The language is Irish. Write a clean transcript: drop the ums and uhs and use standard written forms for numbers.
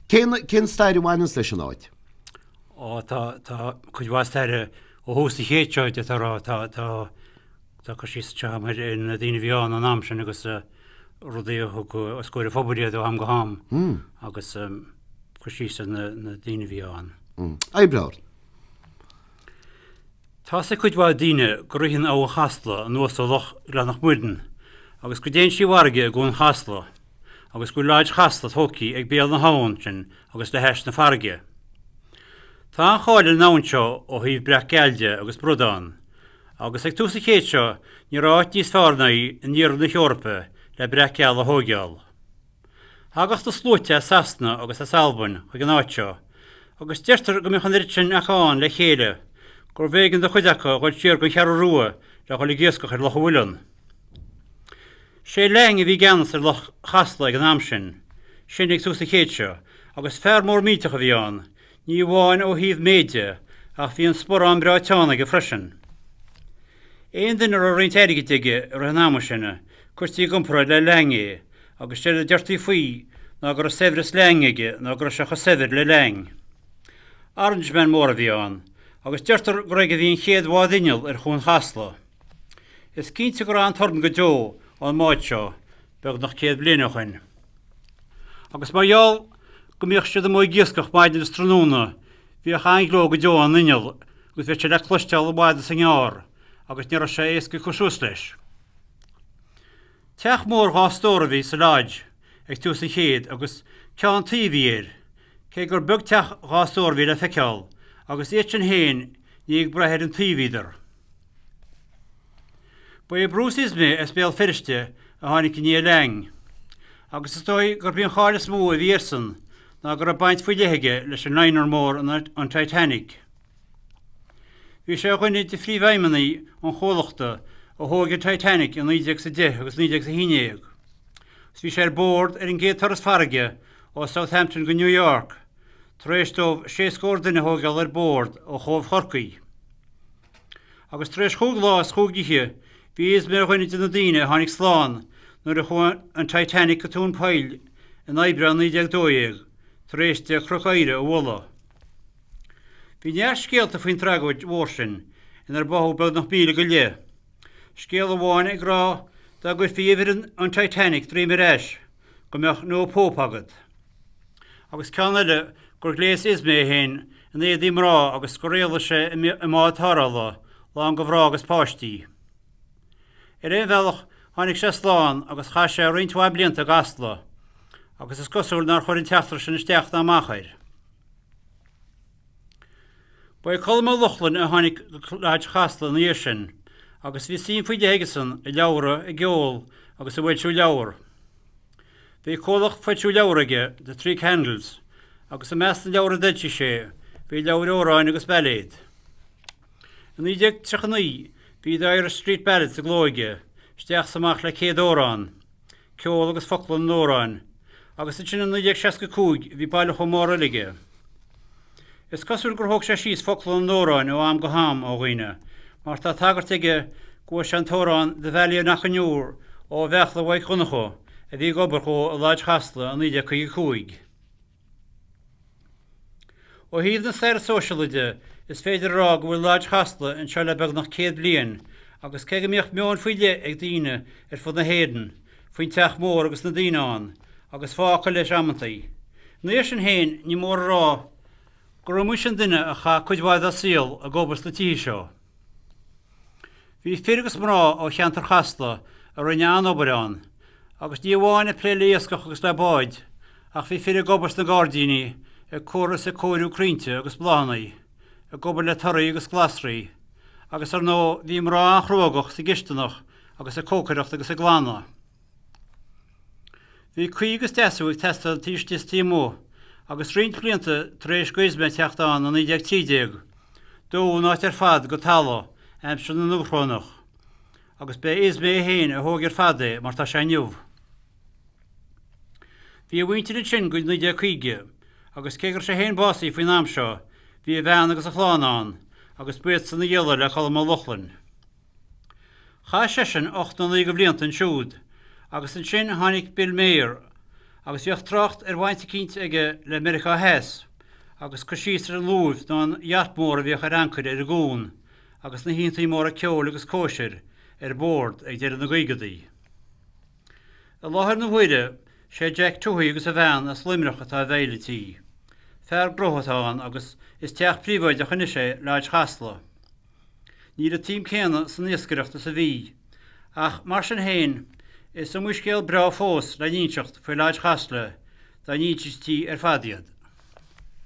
Cén, cén stair a bhaineanns leis an áit? Ó, tá, tá cuid mhaith staire ó thús an chéid seo, d'fhéadfá a rá. Tá, tá, tá cur síos anseo agam ar na daoine a bhí ann an am sin agus rudaí a thug os comhair an phobail iad ó am go ham agus cur síos ar na, na daoine a bhí ann. Oibreoir. Tá's ag cuid mhaith daoine go ritheann Abhainn Chasla anuas ó Loch Ghleannach Muireann agus go dtéann sí i bhfarraige i gCuan Chasla agus go bhfuil Lodge Chasla tógtha ag béal na habhann sin agus le hais na farraige. Tá an-cháil ar an abhainn seo ó thaobh breac geal de agus bradán agus ag tús an chéid seo ní raibh áit níos fearr ná í in iarthar na hEorpa le breac geal a thóigeáil. Thagadh na sluaite as Sasana agus as Albain chuig an áit seo, agus deirtear go mbíodh an oiread sin acu ann le chéile gurbh éigean do chuid acu a dhul siar gon Cheathrú Rua le dhul ag iascach ar Loch a' Mhuileann. Sé Laing a bhí i gceannas ar Loch Chasla ag an am sin, sin ag tús an chéid seo, agus fear mór millteach a bhí ann, ní amháin ó thaobh méide ach bhí an sporán breá teann aige freisin. Aon duine a raibh roinnt airgid aige i rith an ama sin, cuirtí i gcomparáid le Laing é, agus séard a deirtí faoi ná go raibh saibhreas Laing aige nó go raibh sé chomh saibhir le Laing. Orangeman mór a bhí ann, agus deirtear gur aige a bhí an chéad bhád inneall ar Chuan Chasla. Is cinnte go raibh an-torann go deo ón mbád seo, beagnach 100 bliain ó shoin. Agus mar gheall go mbíodh siad amuigh ag iascach maidin is tráthnóna, bhíodh an-ghleo go deo ón inneall agus bhíodh sé le cloisteáil i bhfad is i ngearr agus ní raibh sé éasca cur suas leis. Teach mór dhá stór a bhí sa Lodge ag tús an chéid agus ceann tuí a bhí air, cé gur beag teach dhá stór a bhí le feiceáil, agus iad sin féin ní ag brath ar an tuí a bhíodar. Ba é Bruce Ismay as Béal Feirste a tháinig i ndiaidh Laing, agus is dóigh gurb í an cháil is mó a bhí airsean ná go raibh baint faoi leith aige leis an liner mór an Titanic. Bhí sé ar dhuine de phríomhfheidhmeannaigh an chomhlachta a thóg an Titanic i 1910 agus 1911 agus bhí sé ar bord ar an gcéad turas farraige ó Southampton go New York tar éis dóibh sé scór duine a thóigeáil ar bord ó Chóbh Chorcaí. Agus tar éis chúig lá is chúig oíche bhí Ismay ar dhuine de na daoine a tháinig slán nuair a chuaigh an Titanic go tóin poill in Aibreán 1912 tar éis di Cnoc Oighre a bhualadh. Bhí neart scéalta faoin tragóid mhór sin, inar báthadh beagnach 1,000 go leith. Scéal amháin ag rá dá gcuirfí uimhir an Titanic droim ar ais, go mbeadh No Pope agat. Agus ceann eile gur ghléas Ismay é féin in éadaí mná agus gur éalaigh sé i mbád tarrthála, lán de mhná agus páistí. Ar aon bhealach, tháinig sé slán agus chaith sé roinnt mhaith blianta i gCasla, agus is cosúil nár chuir an t-eachtra sin isteach ná amach air. Ba é Colm Ó Lochlainn a tháinig go Lodge Chasla ina dhiaidh sin agus bhí suim faoi leith aigesan i leabhra, i gceol agus i bhfoilsiú leabhar. Bhí comhlacht foilsiú leabhar aige, The Three Candles, agus i measc na leabhar a d'fhoilsigh sé bhí leabhair amhráin agus bailéad. I 1939 bhí The Irish Street Ballads i gcló aige, isteach is amach le 100 amhrán. ceol agus focla na n-amhrán, agus ansin i 1965 bhí bailiúchán mór eile aige. Is cosúil gur thóg sé síos focla na n-amhrán ó am go ham ó dhaoine, mar tá tagairt aige go bhfuair sé an t-amhrán 'The Valley of Knockanure' ó Bheachla Mhaidhc Dhonncha a bhí ag obair dhó i Lodge Chasla i 1955. Ó thaobh na staire sóisialaí de, is féidir a rá go bhfuil Lodge Chasla anseo le beagnach 100 bliain agus cé go mbíodh meon faoi leith ag daoine ar fud na hÉireann faoin teach mór agus na daoine ann, agus fáth acu leis amantaí, ina dhiaidh sin féin ní mór a rá gur iomaí sin duine a chaith cuid mhaith dá saol ag obair sna tithe seo. Bhí fir agus mná ó cheantar Chasla a rinne an-obair ann, agus ní amháin ag plé le iascach agus le báid, ach bhí fir ag obair sna gairdíní, ag cur is ag cóiriú crainnte agus bláthanna, ag obair le torthaí agus glasraí, agus ar ndóigh bhí mná an-chruógach sa gcisteanach agus ag cócaireacht agus ag glanadh. Bhí caoi agus deasú ag teastáil taobh istigh is taobh amuigh, agus roinnt blianta tar éis do Ismay teacht ann i 1913, dódh an áit ar fad go talamh aimsir na nDubhshrónach, agus b'é Ismay é féin a thóg ar fad é mar tá sé inniu. Bhí a mhuintir ansin go 1950, agus cé go raibh sé féin básaithe faoin am seo, bhí a bhean agus a chlann ann, agus ba iadsan a ghialla le Colm Ó Lochlainn. Chaith seisean 89 de bhlianta ansiúd, agus ansin tháinig Bill Maher. Agus bhíodh trácht ar bhaint eicínt aige le Meiriceá Theas, agus cur síos ar an luaimh nó an yacht mór a bhíodh ar ancaire ar an gcuan, agus na hoícheantaí móra ceoil agus cóisir ar bord ag deireadh na gcaogadaí. I láthair na huaire, sé Jack Tuohy agus a bhean as Luimneach atá i bhfeighil an tí. Fear gnótha atá ann agus is teach príobháideach anois é Lodge Chasla. Níl an tsuim céanna san iascaireacht is a bhí, ach mar sin féin, is iomaí scéal breá fós le n-inseacht faoi Lodge Chasla dá n-insintí ar fad iad.